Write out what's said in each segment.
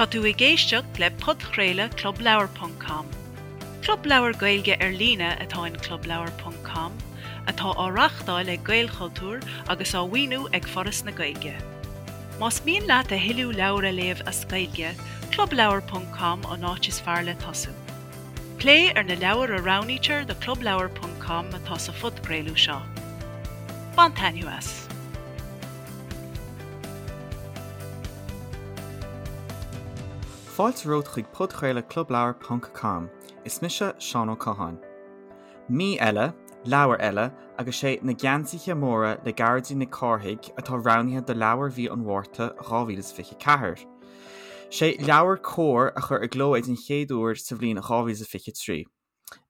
Tá tú ag éisteacht le podchraoladh Club Leabhar ponc com. Club leabhar Gaeilge ar líne atá in Club Leabhar ponc com, atá á reáchtáil ag Gaelchultúr agus á mhaoiniú ag Foras na Gaeilge. Más mian leat a thuilleadh leabhar a léamh as Gaeilge, Club Leabhar ponc com an áit is fearr le tosú. Plé ar na leabhair a roghnaítear do Club Leabhar ponc com atá sa phodchraoladh seo. Bain taitneamh as! Fáilte romhat chuig podchraoladh Club Leabhar ponc com. Is mise Seán Ó Catháin. Mí eile, leabhar eile, agus sé Na Geansaithe Móra le Gearóidín Nic Cárthaigh atá roghnaithe do leabhar mhí an Mhárta 2024. Sé leabhar Comhar a chuir i gcló é den chéad uair sa bhliain 2023.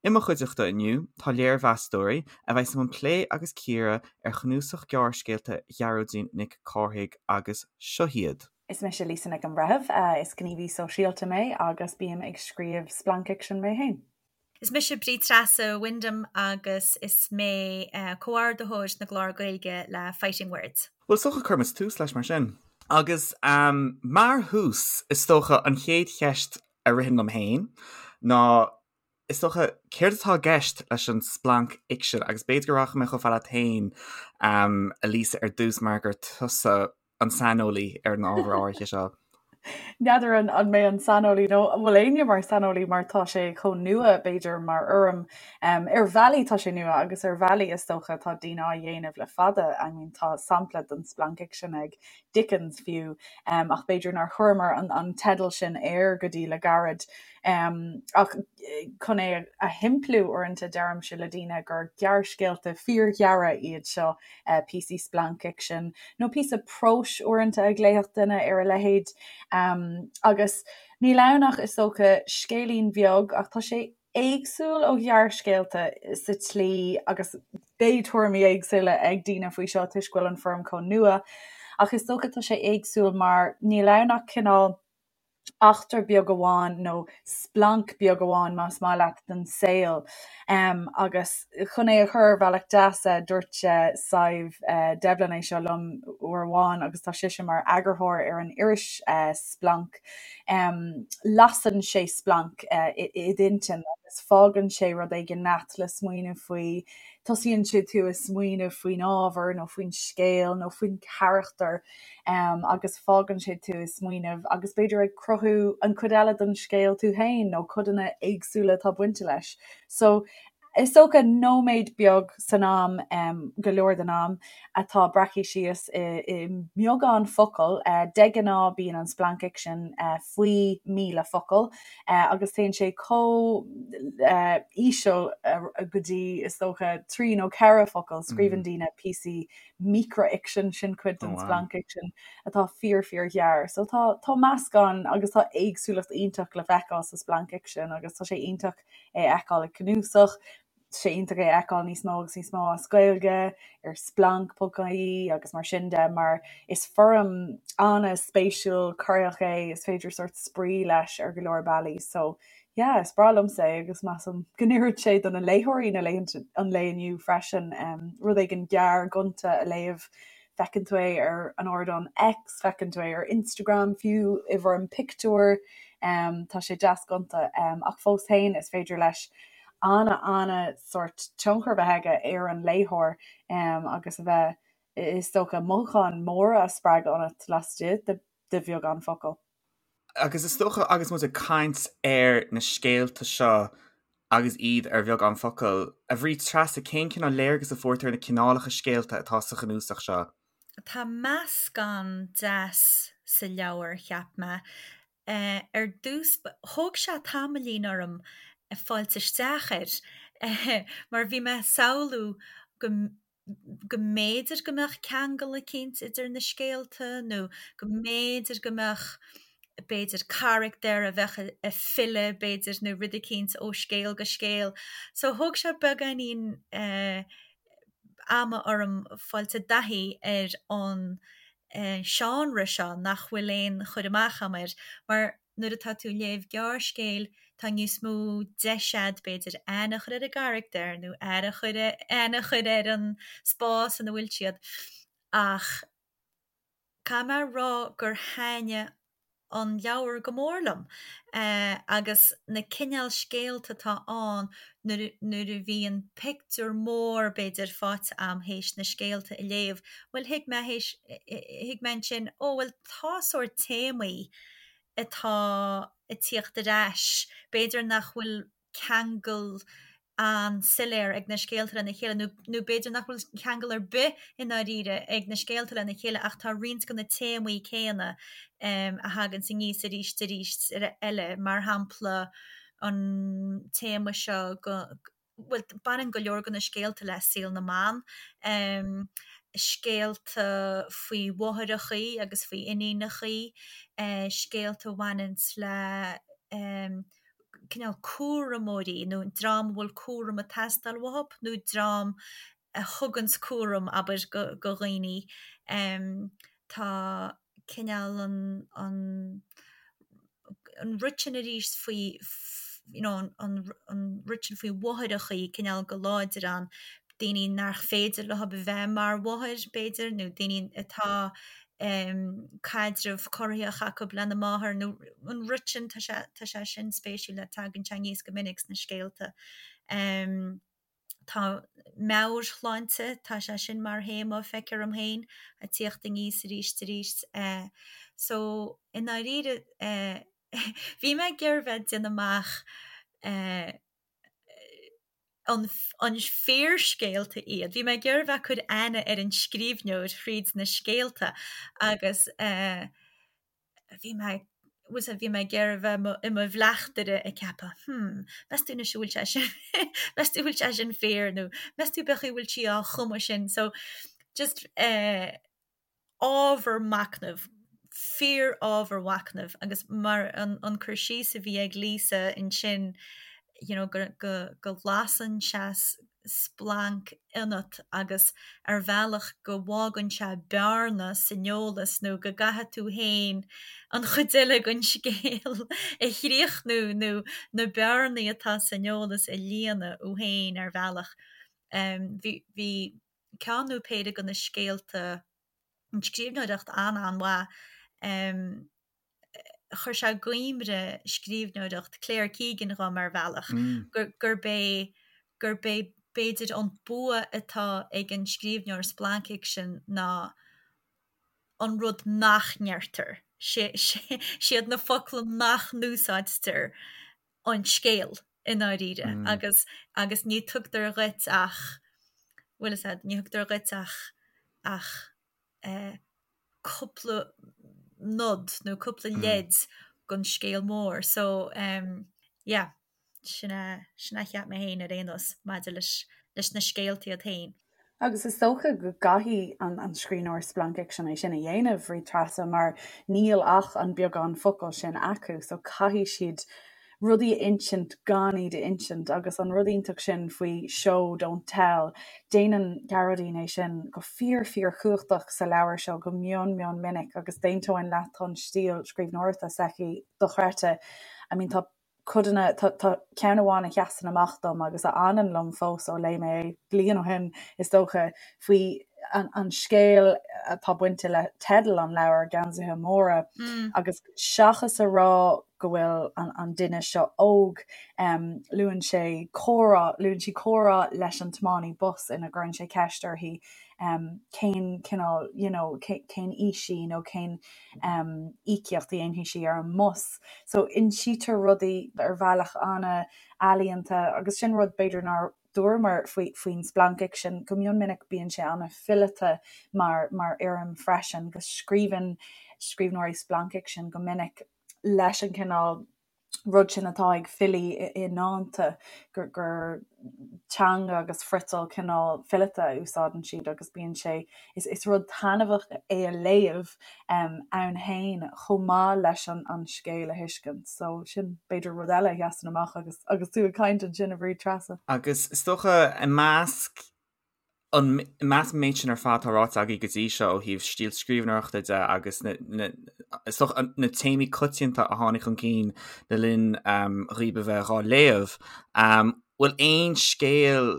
I mo chuideachta inniu tá léirmheastóirí a bheas i mbun plé agus cíoradh ar chnuasach gearrscéalta Ghearóidín Nic Cárthaigh agus seo hiad. Is mise Lisa Nic an Bhreithimh, is gníomhaí sóisialta mé agus bím ag scríobh splancfhicsin mé féin. Is mise Bríd Treasa Wyndham agus is mé comhordaitheoir na gclár Gaeilge le Fighting Words. Bhuel, is dócha cuirfidh muid tús leis mar sin. Agus mar thús, is dócha an chéad cheist a ritheann liom féin ná, is dócha, céard atá i gceist leis an splancfhicsean? Agus b'fhéidir go rachaidh mé chomh fada leat féin, a Lisa, ar dtús mar gur tusa an saineolaí ar an ábhar áirithe seo. N'fheadar an mé an saineolaí nó an bhfuil éinne mar saineolaí mar tá sé chomh nua b'fhéidir mar fhoirm. Ar bhealaí tá sé nua agus ar bhealaí is dócha tá daoine á dhéanamh le fada. I mean tá sampla den splancfhicsean ag Dickens fiú ach b'fhéidir nár chuireamar an teideal sin air go dtí le gairid. Ach chun é a shimpliú uaireanta deirimse le daoine gur gearrscéalta fíorghearra iad seo píosaí splancfhicsin, nó píosa próis uaireanta a ghlaofadh duine ar a leithéid. Agus níl ann ach, is dócha, scéilín bheag, ach tá sé éagsúil ó ghearrscéalta sa tslí, agus beidh tuairimí éagsúla ag daoine faoi seo toisc go bhfuil an foirm chomh nua, ach is dócha tá sé éagsúil mar níl ann ach cineál eachtra beag amháin nó splanc beag amháin más maith leat den saol. Agus chun é a chur ar bhealach deas, dúirt Sadhbh Devlin é seo liom uair amháin agus tá sise mar eagarthóir ar an iris Splanc, lasann sé splanc i d'intinn agus fágann sé rud éigin leat le smaoineamh faoi, tosaíonn sé tú ag smaoineamh faoin ábhar nó faoin scéal nó faoin charachtar. agus fágann sé tú ag smaoineamh agus b'fhéidir ag cruthú an chuid eile den scéal tú féin nó codanna éagsúla atá bainte leis. So is dócha nóiméad beag san am, go leor den am, atá breactha síos i i mbeagán focal. De ghnáth bíonn an splancfhicsean faoi 1,000 focal agus téann sé chomh íseal go dtí is dócha 3 nó 4 focal. Scríobhann daoine píosaí micreafhicsean, sin cuid den splancfhicsean atá fíor fíor ghearr. So tá tá meascán agus tá éagsúlacht iontach le feiceáil sa splancfhicsean agus tá sé iontach é a fheiceáil i gcnuasach, tá sé iontach é a fheiceáil níos mó agus níos mó as Gaeilge ar splanc.ie agus mar sin de mar is foirm an-spéisiúil corraitheach é, is féidir sórt spraoi leis ar go leor bealaí. So Yeah, is breá liomsa é agus measaim go n-oireann sé do na léitheoirí na laethanta, an lae inniu freisin. Rud éigin gearr gonta a léamh, feiceann tú é ar an ardán X, feiceann tú é ar Instagram fiú i bhfoirm pictiúir, tá sé deas gonta ach fós féin is féidir leis ana-ana sórt tionchar a bheith aige ar an léitheoir agus a bheith, is dócha, mothúcháin mhóra a spreagadh ionat laistigh de bheagán focal. Agus is dócha agus muid ag caint ar na scéalta seo agus iad ar bheagán focal, a Bhríd Treasa, cén cineál léargas a fuair tú ar na cineálacha scéalta atá sa chnuasach seo? Tá meascán deas sa leabhar, cheap mé. Ar dtús, thóg sé tamaillín orm fáilt isteach air mar bhí mé ag samhlú go go mb'fhéidir go mbeadh ceangal eicínt idir na scéalta nó go mb'fhéidir go mbeadh b'fhéidir carachtar a bheadh ag filleadh b'fhéidir nó rud eicínt ó scéal go scéal. So thóg sé beagáinín eh ama orm fáilt i dtaithí ar an eh seánra seo nach bhfuil aon chur amach a'm air mar nuair atá tú ag léamh gearrscéil, tá níos mó deis a'd, b'fhéidir, aithne a chur ar an gcarachtar nó aire a chur, aithne a chur ar an spás ina bhfuil siad. Ach caithfidh mé a rá gur thaitnigh. an leabhar go mór liom agus na cineál scéalta atá ann nuair nuair a bhíonn pictiúr mór b'fhéidir faighte a'm théis na scéalta a léamh, bhuel thuig mé théis thuig mé ansin ó bhuel tá sórt téamaí atá ag tíocht ar ais, b'fhéidir nach bhfuil ceangal an-soiléir ag na scéalta lena chéile, nó nó b'fhéidir nach bhfuil ceangal ar bith i ndáiríre ag na scéalta lena chéile ach tá roinnt de na téamaí céanna a thaganns aníos arís arís eile, mar shampla an téama seo go, bhuel baineann go leor de na scéalta le saol na mban, scéalta faoi mháithreachaí agus faoi iníonachaí, scéalta a bhaineanns le cineál cúramóirí nó dream a bhfuil cúram ag teastáil uathu nó dream a thuganns cúram, abair, go dhaoine. Tá cineál an, an, an rud sin arís faoi, you know, an, an rud sin faoi mháithreachaí cineál go láidir ann, daoine nach féidir leo a bheith mar mháthair, b'fhéidir, nó daoine atá caidreamh corraitheach acu lena máthair nó an rud sin, tá sé, tá sé sin spéisiúil, tagann sé aníos go minic sna scéalta. Tá meabhairshláinte, tá sé sin mar théama, feictear dom féin, ag tíocht aníos arís arís. So, i ndáiríre, bhí mé ag iarraidh bheith ag déanamh amach an an fíorscéalta iad. Bhí mé ag iarraidh bheith ag cur aithne ar an scríbhneoir thríd na scéalta agus bhí mé bhfuil a fhios agat, bhí mé ag iarraidh bheith i mo bhleachtaire ag ceapadh hmm, meas tú anois an bhfuil sé sin meas tú an bhfuil sé sin fíor nó meas tú cén chaoi a bhfuil sí á chumadh sin so just eh, ábhar machnaimh, fíor-ábhar mhachnaimh agus mar an cur síos a bhí ag Lisa ansin you know go go go lasann sé splanc ionat agus ar bhealach go bhfágann sé bearna san eolas nó go gcaithfidh tú féin an chuid eile den scéal a chríochnú nó na bearnaí atá san eolas a líonadh thú féin ar bhealach. Bhí bhí ceann nó péire de na scéalta, an scríbhneoireacht an-an-mhaith. Chuir sé i gcuimhne scríbhneoireacht Claire Keegan dhom ar bhealach, gurb é gurb é b'fhéidir an bua atá ag an scríbhneoir splancfhicsin ná an rud nach ndeirtear, siad na focla nach n-úsáidtear an scéal i ndáiríre agus agus ní tugtar dhuit ach, bhfuil fhios a'd, ní thugtar dhuit ach ach eh cúpla nod nó cúpla leid den scéal mór so em yeah sin é sin é a cheap mé féin ar aon nós maidir leis leis na scéalta iad féin. Agus is dócha go gcaithfidh an scríbhneoir splancfhicsin é sin a dhéanamh, a Bhríd Treasa, mar níl ach an beagán focal sin acu, so caithfidh siad rudaí a insint gan iad a insint. Agus an rud iontach sin faoi show, don't tell, déanann Gearóidín é sin go fíor fíor chumhachtach sa leabhar seo go mion mion minic agus d'aontóinn leat tá an stíl scríbhneoireachta s'aici dochreidte. I mean tá codanna, tá tá ceann amháin a sheasann amach dom agus a fhanann liom fós ó léigh mé é bliain ó shin, is dócha, faoi an an scéal atá bainte le teideal an leabhair, Geansaithe Móra, agus seachas a rá go bhfuil an an duine seo óg, luann sé comhrá, luann sí comhrá leis an tiománaí bus ina gcuireann sé ceist uirthi cén cineál, you know, cén aois í nó cén íocaíocht a dhéanfaidh sí ar an mbus. So insítear rudaí ar bhealach an-ealaíonta agus sin rud b'fhéidir nár dúramar faoi faoin splancfhicsean, go mion minic bíonn sé an-fhileata mar mar fhoirm freisin, go scríobhann scríbhneoirí splancfhicsin go minic leis an cineál rud sin atá ag filí i ndánta, gur teanga agus friotal cineál fileata a úsáideann siad agus bíonn sé, is rud taitneamhach é a léamh ann féin chomh maith leis an scéal a thuiscint. So sin b'fhéidir rud eile a sheasann amach agus agus tú ag caint ansin a Bhríd Treasa. Agus is dócha i measc an i measc an méid sin ar fad atá ráite agaibh go dtí seo ó thaobh stíl scríbhneoireachta de agus na, na, is dócha na téamaí coitianta a tháinig chun cinn le linn um, dhaoibh a bheith dhá léamh, um, bhfuil aon scéal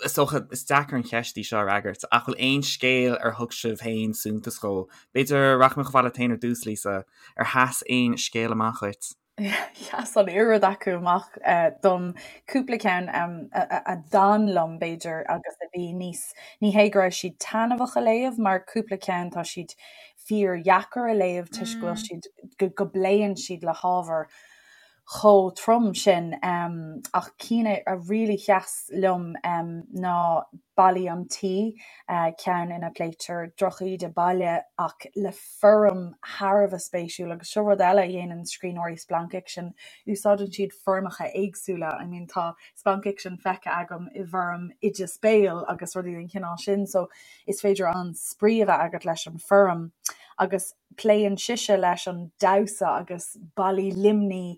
Is dócha, is deacair an cheist í seo a fhreagairt, ach bhfuil aon scéal ar thug sibh féin suntas dhó? B'fhéidir, rachaidh mé chomh fada leat féin ar dtús, Lisa, ar sheas aon scéal amach dhuit? Sheas an oiread acu amach dom, cúpla ceann a d'fhan liom, b'fhéidir, agus a bhí níos, ní hé go raibh siad taitneamhach a léamh, mar cúpla ceann tá siad fíordheacair a léamh toisc go bhfuil siad, go bpléann siad le hábhar chomh trom sin. Ach cinn a really sheas liom ná Ballaí an Tí, ceann ina bpléitear drochíde baile ach le foirm thar a bheith spéisiúil agus seo rud eile a dhéanann scríbhneoirí splancfhicsin, úsáideann siad foirmeacha éagsúla. I mean tá splancfhicsean feicthe agam i bhfoirm oideas béil agus rudaí den chineál sin so is féidir an-spraoi a bheith agat leis an foirm agus Pléann sise leis an damhsa agus ballaí Luimní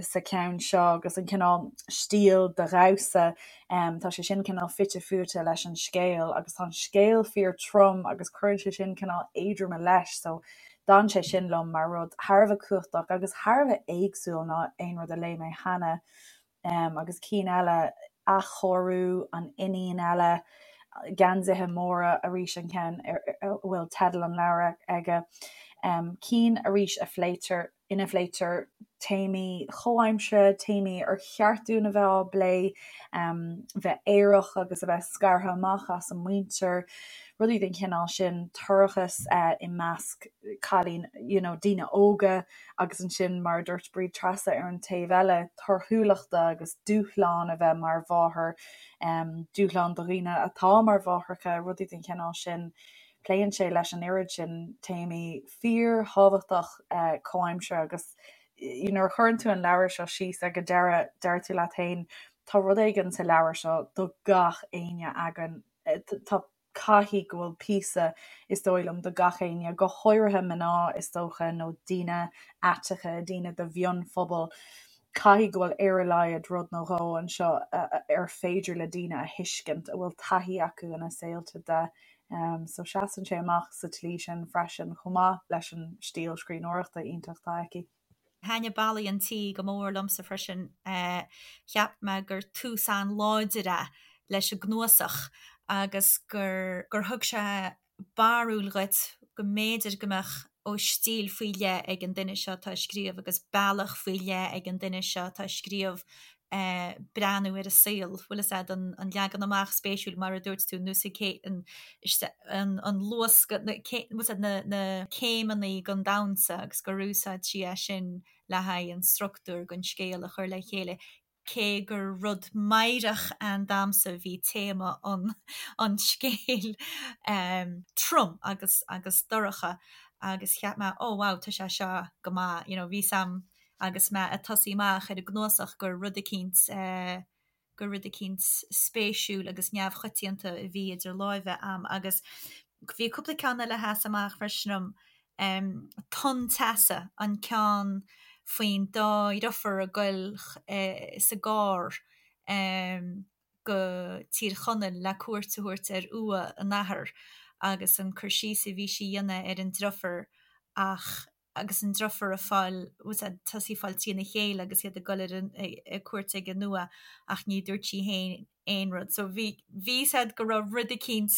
sa cheann seo agus an cineál stíl de dhamhsa. Tá sé sin cineál fite fuaite leis an scéal agus tá an scéal fíor trom agus cuireann sé sin cineál éadroime leis so d'fhan sé sin liom mar rud thar a bheith cumhachtach agus thar a bheith éagsúil ná aon rud a léigh mé cheana. Agus cinn eile, Athchóiriú, An Iníon Eile, Geansaithe Móra arís an ceann a bhfuil teideal an leabhair aige. Cinn arís a phléitear, ina phléitear téamaí chomhaimseartha, téamaí ar cheart dúinn a bheith á bplé, bheith aerach agus a bheith scartha amach as an muintir, rudaí den chineál sin, toircheas i measc cailín, you know, daoine óga. Agus ansin, mar a dúirt Bríd Treasa ar an taobh eile, torthúlachta agus dúshlán a bheith mar mháthair, dúshlán do dhaoine atá mar mháithreacha, rudaí den chineál sin. Pléann sé leis an oiread sin téamaí fíorthábhachtach comhaimseartha agus nuair a chuireann tú an leabhar seo síos ag an deireadh, deir tú leat féin, tá rud éigin sa leabhar seo do gach éinne againn. Tá Caithfidh go bhfuil píosa, is dóigh liom, do gach éinne, go háirithe mná, is dócha, nó daoine aiteacha, daoine de mhionphobal. Caithfidh go bhfuil ar a laghad rud nó dhó anseo ar féidir le daoine a thuiscint, a bhfuil taithí acu ina saolta de. So seasann sé amach sa tslí sin freisin, chomh maith leis an stíl scríbhneoireachta iontach atá aici. Thaitnigh Ballaí an Tí go mór liomsa freisin. Cheap mé gur tús an-láidir é leis an gcnuasach agus gur gur thug sé barúil dhuit go mb'fhéidir go mbeadh ó stíl faoi leith ag an duine seo atá ag scríobh agus bealach faoi leith ag an duine seo atá ag scríobh breathnú ar an saol, bhfuil fhios a'd, an leagan amach spéisiúil mar a dúirt tú, nós an an luascadh, na bhfuil fhios a'd, na na céimeannaí gon damhsa agus gur úsáid sí é sin le haghaidh an structúr gon scéal a chur le chéile, cé gur rud meidhreach ann damsa bhí téama an an scéil trom agus agus dorcha agus cheap mé oh wow tá sé seo go maith, you know bhí 's a'm agus mé ag tosaí amach ar an gcnuasach gur rud eicínt gur rud eicínt spéisiúil agus neamhchoitianta a bhí idir láimhe a'm agus bhí cúpla ceann eile a sheas amach freisin liom, Tonn Teasa, an ceann faoin dá dhriofúr ag goil sa gcarr go Tír Chonaill le cuairt a thabhairt ar uaigh a n-athar agus an cur síos a bhí sí a dhéanamh ar an driofúr ach agus an driofúr ag fáil, bhfuil fhios a'd, tosaí ag fáil trína chéile agus iad ag dul ar an, ag cuairt ag an uaigh ach ní dúirt sí féin aon rud. So bhí, bhí fhios a'd go raibh rud eicínt,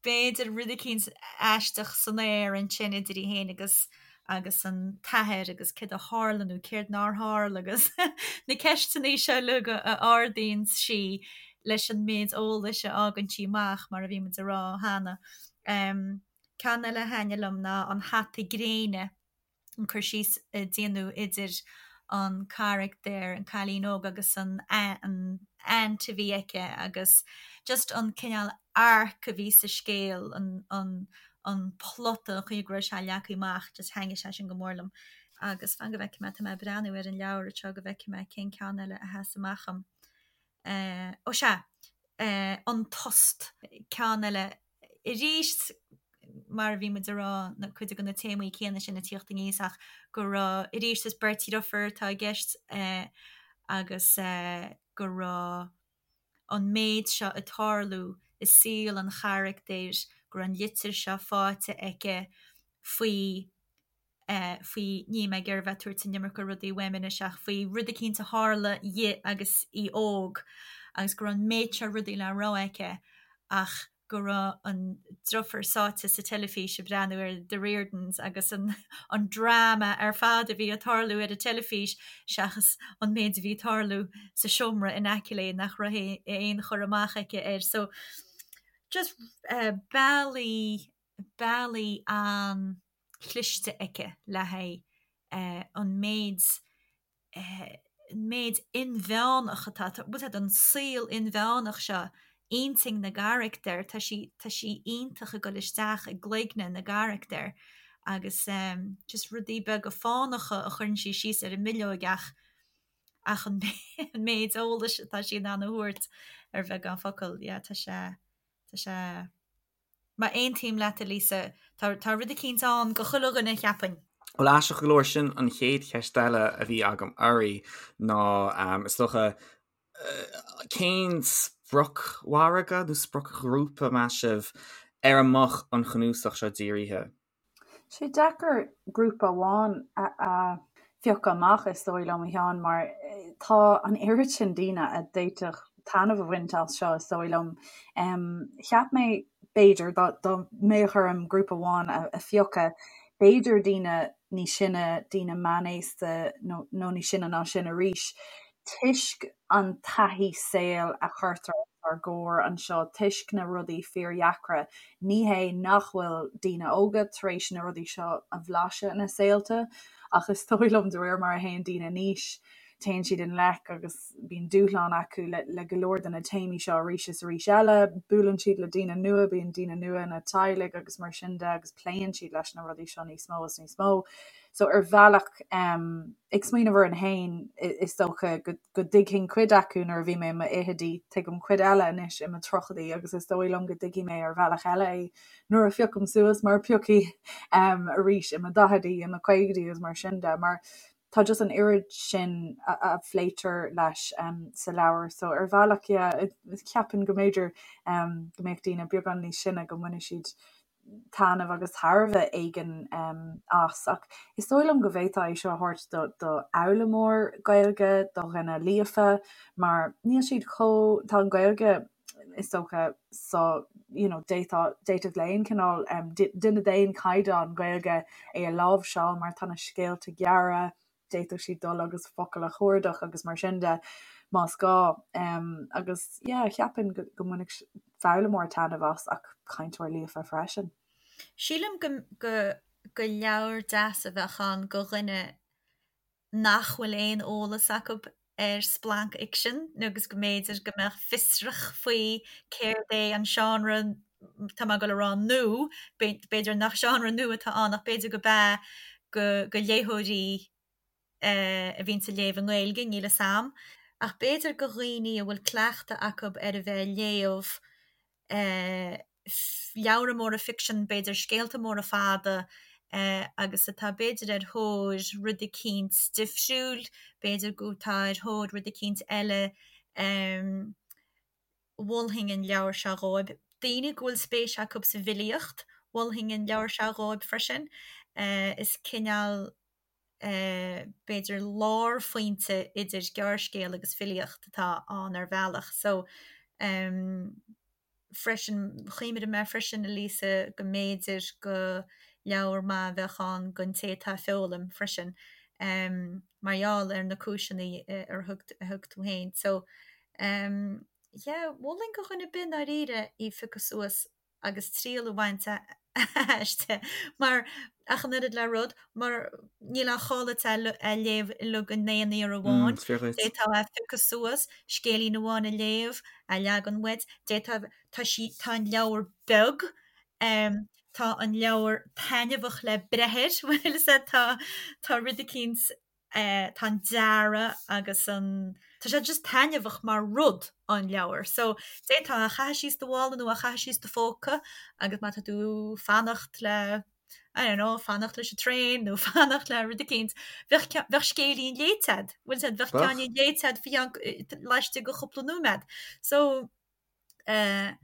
b'fhéidir rud eicínt aisteach san aer ansin idir í féin agus, agus an t-athair agus céard a tharla nó céard nár tharla agus na ceisteanna seo uilig a ardaíonn sí leis an méid eolais a fhágann sí amach mar a bhí muid a rá cheana. Um. Ceann eile a thaitnigh liom ná An Hata Gréine, an cur síos a déanadh idir an carachtar, an cailín óg agus an an aunt a bhí aici agus just an cineál arc a bhí sa scéal, an an an plota, an chaoi go raibh sé leagtha amach, just thaitnigh sé sin go mór liom. Agus fan go bhfeicfidh mé, tá mé ag breathnú ar an leabhar anseo go bhfeicfidh mé cén ceann eile a sheas amach dom. Ó sea, An Tost, ceann eile Arís, mar a bhí muid a rá, na cuid de na téamaí céanna sin ag tíocht aníos ach go raibh, arís, is beirt dhriofúr atá i gceist agus go raibh an méid seo ag tarlú i saol an charachtair, go raibh an litir seo faighte aici faoi faoi, níl mé ag iarraidh a bheith ag tabhairt an iomarca rudaí uaim anois ach faoi rud eicínt a tharla dhi agus í óg. agus go raibh an méid seo rudaí le rá aici ach go raibh an deirfiúr sáite sa teilifís ag breathnú ar The Riordans agus an an dráma ar fad a bhí ag tarlú ar an teilifís seachas an méid a bhí ag tarlú sa seomra in aice léi nach raibh aon chur amach aici air. So just bealaí bealaí an-chliste aici le haghaidh an méid an méid inmheánach atá, bhfuil a fhios agat, an saol inmheánach seo, intinn na gcarachtar, tá sí, tá sí iontach ag dul isteach i gcloigne na gcarachtar agus just rudaí beaga fánacha a chuireann sí síos ar an mbileog ach ach an méid eolais atá sí in ann a thabhairt ar bheagán focal, yeah, tá sé, tá sé. Mar aontaím leat, a Lisa, tá tá rud eicínt ann go chuile dhuine, cheapfainn. Bhuel, aisteach go leor, sin an chéad cheist eile a bhí agam oraibh ná, is dócha, cén spriocmhargadh nó spriocghrúpa, meas sibh, ar a mbeadh an chnuasach seo dírithe? Sé deacair grúpa amháin a phiocadh amach is dóigh liom, a Sheáin, mar tá an oiread sin daoine a d'fhéadfadh taitneamh a bhaint as seo is dóigh liom. Cheap mé, b'fhéidir, dá mbeadh orm grúpa amháin a phiocadh, b'fhéidir daoine níos sine, daoine meánaosta nó níos sine ná sin arís, toisc an taithí saoil a chuirtear os ár gcomhair anseo, toisc na rudaí fíordheacra. Ní hé nach bhfuil daoine óga tar éis na rudaí seo a bhlaiseadh ina saolta, ach is dóigh liom de réir mar a théann daoine in aois, téann siad i ngleic agus bíonn dúshlán acu le go leor de na téamaí seo arís is arís eile. Buaileann siad le daoine nua, bíonn daoine nua ina dteaghlaigh agus mar sin de agus pléann siad leis na rudaí seo níos mó is níos mó. So ar bhealach, ag smaoineamh orainn féin, is dócha go dtuigfinn cuid acu nuair a bhí mé i mo fhichidí, tuigim cuid eile anois i mo tríochaidí agus is dóigh liom go dtuigfidh mé ar bhealach eile é nuair a phiocaim suas mar piocfaidh arís i mo daichidí, i mo chaogaidí agus mar sin de. Mar tá just an oiread sin a phléitear leis sa leabhar so ar bhealach, yeah, ceapaim go mb'fhéidir go mbeadh daoine beagán níos sine go mbainfidh siad taitneamh agus tairbhe éigin as. Ach is dóigh liom go bhféadfá é seo a thabhairt do do fhoghlaimeoir Gaeilge, do dhuine líofa, mar níl siad chomh, tá an Ghaeilge is dócha so you know d'fhéadfá, d'fhéadfadh le aon chineál duine d'aon chaighdeán Gaeilge é a láimhseáil mar tá na scéalta gearra, d'fhéadfadh siad dul agus focail a chuardach agus mar sin de más gá. Agus yeah, cheapfainn go go mbainfeadh foghlaimeoir taitneamh as ach cainteoir líofa freisin. Sílim go go go leabhar deas a bheadh ann go dhuine nach bhfuil aon eolas acu ar splancfhicsean agus go mb'fhéidir go mbeadh fiosrach faoi céard é an seánra tá mé ag dul a rá nua, b'fhéidir nach seánra nua atá ann ach b'fhéidir go b'ea go go léitheoirí a bhíonns ag léamh i nGaeilge, níl 'fhios a'm. Ach b'fhéidir go dhaoine a bhfuil cleachtadh acu ar a bheith ag léamh leabhra móra ficsean, b'fhéidir scéalta móra fada agus atá b'fhéidir ar thóir rud eicínt difriúil, b'fhéidir go tá ar thóir rud eicínt eile. Mholfainn an leabhar seo dhóibh. Daoine go bhfuil spéis acu sa bhfilíocht, mholfainn an leabhar seo dhóibh freisin. Is cineál, b'fhéidir, lárphointe idir gearrscéal agus filíocht atá ann ar bhealach. So, freisin, chuimhnigh mé freisin, a Lisa, go mb'fhéidir go leabhar maith a bheadh ann don té atá ag foghlaim freisin, mar gheall ar na cúiseanna a thug tú féin. So, yeah, mholfainn do dhuine ar bith i ndáiríre í a phiocadh suas agus triail a bhaint aisti mar ach an oiread le rud, mar níl aon chall duit é a léamh uilig in aon iarraidh amháin. D'fhéadfá é a phiocadh suas, scéilín amháin a léamh, a leagan uait, d'fhéadfá, tá sí, tá an leabhar beag, tá an leabhar taitneamhach le breith air, bhfuil fhios a'd, tá, tá rud eicínt tá an dearadh agus an, tá sé just taitneamhach mar rud, an leabhar. So, d'fhéadfá é a chaitheamh síos do mhála nó a chaitheamh síos do phóca agus má tá tú fanacht le, I don't know, fanacht leis an traein nó fanacht le rud eicínt, bheadh bheadh scéilín léite a'd, bhfuil fhios a'd, bheadh ceainnín léite a'd faoi cheann, laistigh de chúpla nóiméad. So, eh,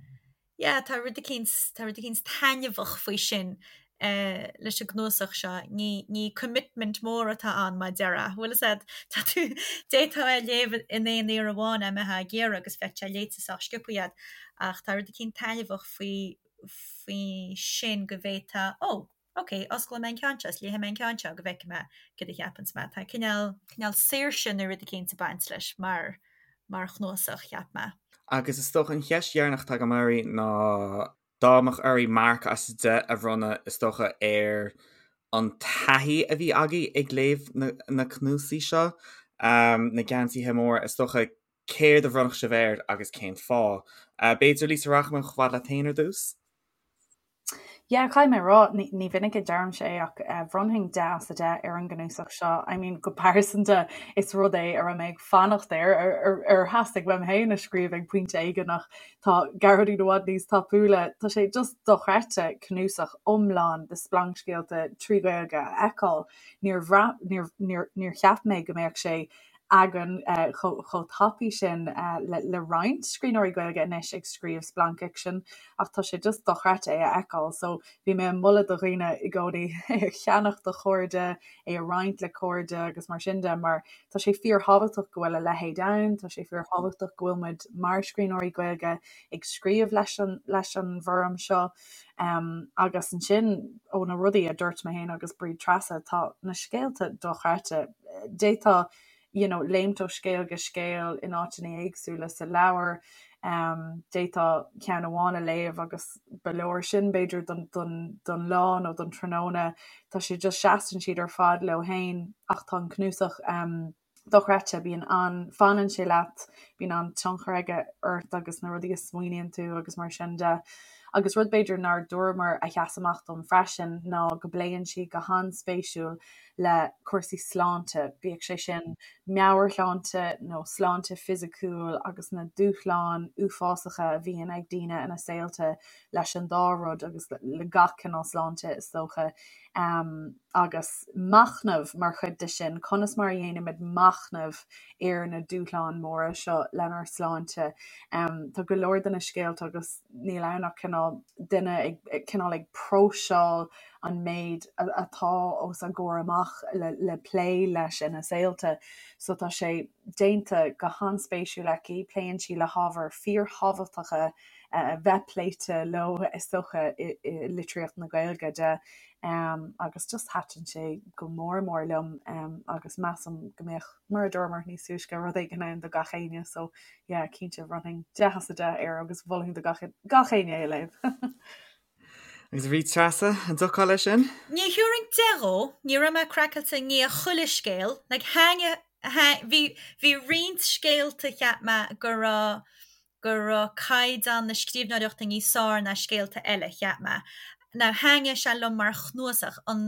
yeah, tá rud eicínt, tá rud eicínt taitneamhach faoi sin. leis an gcnuasach seo. Ní, ní commitment mór atá ann mar a déarfá. Bhfuil fhios a'd, tá tú, d'fhéadfá é a léamh in aon iarraidh amháin dá mbeifeá ag iarraidh agus bheadh sé léite sách sciobtha a'd. Ach tá rud eicínt taitneamhach faoi, faoi sin go bhféadfá, ó, ok, osclóidh mé an ceann seo is léifidh mé an ceann seo go bhfeicfidh mé céard a cheapanns mé. Tá cineál, cineál saoirse nó rud eicínt ag baint leis mar, mar chnuasach, cheap mé. Agus is dócha an cheist dheireanach atá agam oraibh ná dá mbeadh oraibh marc as 10 a bhronnadh, is dócha, ar an taithí a bhí agaibh ag léamh na cnuasaigh seo, na Geansaithe Móra, is dócha, céard a bhronnfadh sibh air agus cén fáth? B'fhéidir, Lisa, rachaidh mé chomh fada leat féin ar dtús? Yeah, caithfidh mé a rá, ní minic a deirimse é ach bhronnfainn 10 as 10 ar an gcnuasach seo. I mean, go pearsanta, is rud é a raibh mé ag fanacht air, ar theastaigh uaim féin a scríobh ag pointe éigin ach tá Gearóidín i bhfad níos tapúla. Tá sé just dochreidte cnuasach iomlán de splancscéalta trí Ghaeilge a fheiceáil. Níor bhraith, níor, níor, níor cheap mé go mbeadh sé againn chomh tapaidh sin le roinnt scríbhneoirí Gaeilge anois ag scríobh splancfhicsin ach tá sé just dochreidte é a fheiceáil. So bhí mé ag moladh do dhaoine i gcónaí é a cheannach do chairde, é a roinnt le cairde agus mar sin de mar tá sé fíorthábhachtach go bhfuil a leithéid ann, tá sé fíorthábhachtach go bhfuil muid mar scríbhneoirí Gaeilge ag scríobh leis an leis an bhfoirm seo. Um, agus ansin ó na rudaí a dúirt mé féin agus Bríd Treasa, tá na scéalta dochreidte. D'fhéadfá you know, léimt ó scéal go scéal in áiteanna éagsúla sa leabhar. Um, d'fhéadfá ceann amháin a léamh agus ba leor sin b'fhéidir don, don, don lá nó don tráthnóna. Tá sé just seasann siad ar fad leo féin ach tá an cnuasach um, dochreidte, bíonn an, fanann sé leat, bíonn an-tionchar aige ort agus na rudaí a smaoiníonn tú agus mar sin de. Agus rud b'fhéidir nár dúramar a sheas amach dom freisin ná go bpléann sí go han-spéisiúil le cúrsaí sláinte, bíodh sé sin meabhairshláinte nó sláinte fisiciúil agus na dúshláin uafásacha a bhíonn ag daoine ina saolta leis an dá rud agus le gach cineál sláinte is dócha. Agus machnamh mar chuid de sin, conas mar a dhéanaimid machnamh ar na dúshláin mhóra seo lenár sláinte. Tá go leor de na scéalta agus níl ann ach cineál duine ag cineál ag próiseáil an méid atá os a gcomhair amach le plé leis ina saolta. So tá sé déanta go han-spéisiúil aici, pléann sí le hábhair fíorthábhachtacha a bheith pléite leo is dócha i litríocht na Gaeilge de agus just thaitin sé go mór mór liom agus measaim go mbeadh, mar a dúramar níos túisce, rud éigin ann do gach éinne so yeah cinnte bhronnfainn 10 as 10 air agus mholfainn do gach gach éinne é a léamh. Agus a Bhríd Treasa, an dtiocfá leis sin? Ní thabharfainn 10 dhó, ní raibh mé craiceáilte i ndiaidh chuile scéal, like thaitnigh, bhí, bhí roinnt scéalta cheap mé go raibh, go raibh caighdeán na scríbhneoireachta níos fearr ná scéalta eile, cheap mé. Now thaitnigh sé liom mar chnuasach, an,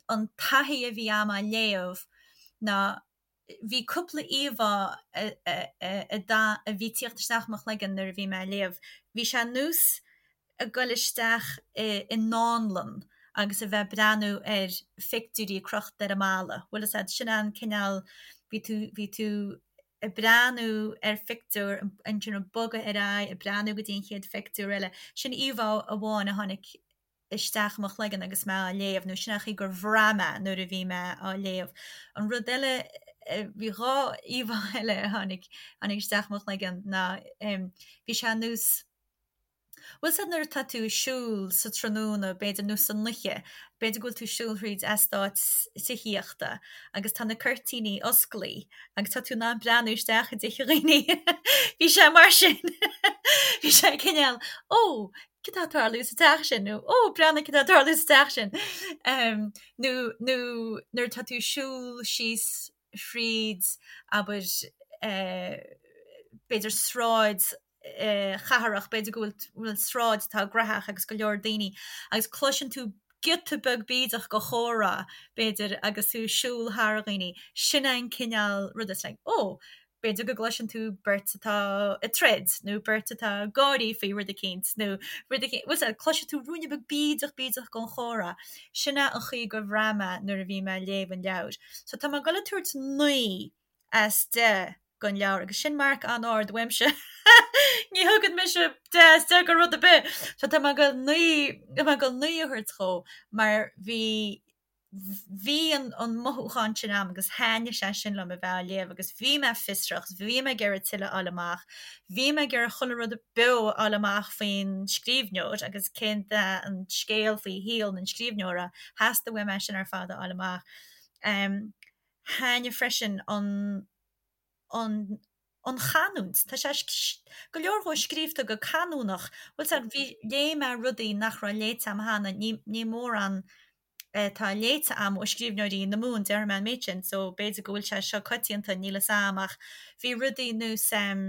an taithí a bhí a'm á léamh ná bhí cúpla íomhá a, a, a, a, a bhí ag tíocht isteach i mo chloigeann nuair a bhí mé á léamh. Bhí sé ar nós ag goil isteach i i ndánlann agus a bheith ag breathnú ar phictiúirí crochta ar an mballa. Bhfuil fhios a'd, sin an cineál, bhí tú, bhí tú ag breathnú ar phictiúr, ansin ag bogadh ar aghaidh, ag breathnú go dtí an chéad phictiúr eile. Sin íomhá amháin a tháinig isteach i mo chloigeann agus mé á léamh, nó sin an chaoi gur bhraith mé nuair a bhí mé á léamh. An rud eile, bhí dhá íomhá eile a tháinig, tháinig isteach i mo chloigeann ná bhí sé ar nós, Bhfuil fhios a'd nuair atá tú ag siúl sa tráthnóna, b'fhéidir, nó san oíche, b'fhéidir go bhfuil tú ag siúl thríd eastát tithíochta agus tá na cuirtíní osclaí agus tá tú in ann breathnú isteach i dtithe dhaoine. Bhí sé mar sin. Bhí sé cineál, ó, cad tá ag tarlú sa teach sin? Nó, ó, breathnaigh cad tá ag tarlú sa teach sin. Nó, nó nuair atá tú ag siúl síos thríd, abair, b'fhéidir sráid chathrach, b'fhéidir go bhfuil sráid atá graitheach agus go leor daoine agus cloiseann tú giota beag bídeach de chomhrá, b'fhéidir, agus tú ag siúl thar dhaoine. Sin é an cineál ruda, it's like, oh, b'fhéidir go gcloiseann tú beirt atá ag troid nó beirt atá ag gáirí faoi rud eicínt nó rud eicínt, bhfuil fhios a'd, cloisfidh tú ruainne beag bídeach bídeach den chomhrá. Sin é an chaoi gur bhraith mé nuair a bhí mé ag léamh an leabhair. So tá mé ag dul ag tabhairt 9 as 10. don leabhar agus sin marc an-ard uaimse. Ní thugann mise 10 as 10 do rud ar bith. So tá mé ag goil 9 tá mé ag goil 9 a thabhairt dhó mar bhí bhí an an mothúchán sin a'm agus thaitnigh sé sin liom a bheith á léamh agus bhí mé fiosrach agus bhí mé ag iarraidh tuilleadh a fháil amach. Bhí mé ag iarraidh chuile rud beo a fháil amach faoin scríbhneoir agus cén an scéal faoi shaol an scríbhneora. Theastaigh uaim é sin ar fad a fháil amach. Thaitnigh freisin an an an chanúint. Tá sé go leor dhó scríobhta go canúnach. Bhfuil 's a'd, bhí, léigh mé rudaí nach raibh léite a'm cheana, ní, ní mórán atá léite a'm ó scríbhneoirí na Mumhan, déarfaidh mé an méid sin, so b'fhéidir go bhfuil sé seo coitianta, níl 'fhios a'm, ach bhí rudaí nós em,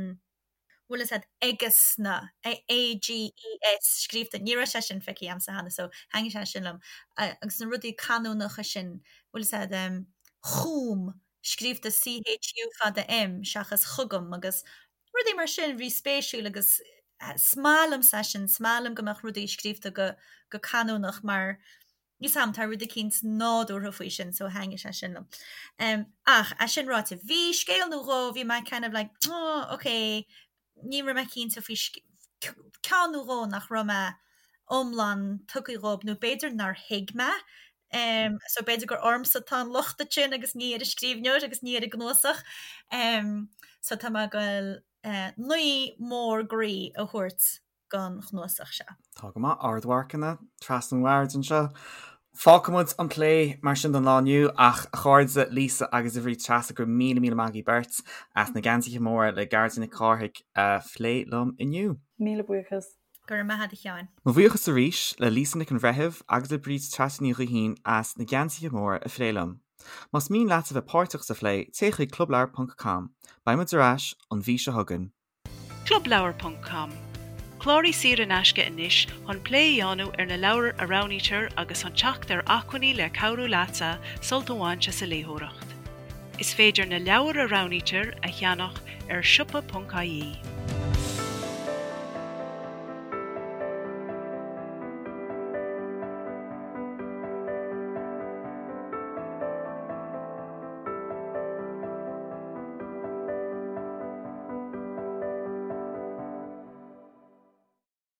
bhfuil 'fhios a'd, aigesna, A-G-E-S, scríobhta, ní raibh sé sin feicthe a'msa cheana, so thaitnigh sé sin liom. Agus na rudaí canúnacha sin, bhfuil 'fhios a'd, em, chugam, scríobhta CHU fada M seachas chugam agus rudaí mar sin, bhí spéisiúil agus is maith liomsa é sin, is maith liom go mbeadh rudaí scríobhta go go canúnach mar níl 's a'm, tá rud eicínt nádúrtha faoi sin so thaitnigh sé sin liom. Um, ach, é sin ráite, bhí scéal nó dhó, bhí mé kind of like, oh, ok, ní raibh mé cinnte faoi ceann nó dhó nach raibh mé iomlán tugtha dhóibh nó b'fhéidir nár thuig mé. Um, so b'fhéidir gur ormsa atá an locht ansin agus ní ar an scríbhneoir agus ní ar an gcnuasach. Um, so tá mé ag goil uh, 9 mór groí a thabhairt don chnuasach seo. Tá go maith, ardmharcanna trasna an bhoird anseo. Fágfaimid an plé mar sin don lá inniu ach a chairde Lisa agus a Bhríd Treasa go raibh míle míle maith agaibh beirt as Na Geansaithe Móra le Gearóidín Nic Cárthaigh a phlé liom inniu. Míle buíochas. Go raibh maith agat a Sheáin. Mo bhuíochas arís le Lisa Nic an Bhreithimh agus le Bríd Treasa Ní Ghaoithín as Na Geansaithe Móra a phlé liom. Más mian leat a bheith páirteach sa phlé, téigh chuig clubleabhar ponc com. Beidh muid ar ais an mhí seo chugainn. Clubleabhar ponc com, Cláraigh saor in aisce anois chun plé a dhéanamh ar na leabhair a roghnaítear agus chun teacht ar acmhainní le cabhrú leatsa sult a bhaint as an léitheoireacht. Is féidir na leabhair a roghnaítear a cheannach ar siopa.ie.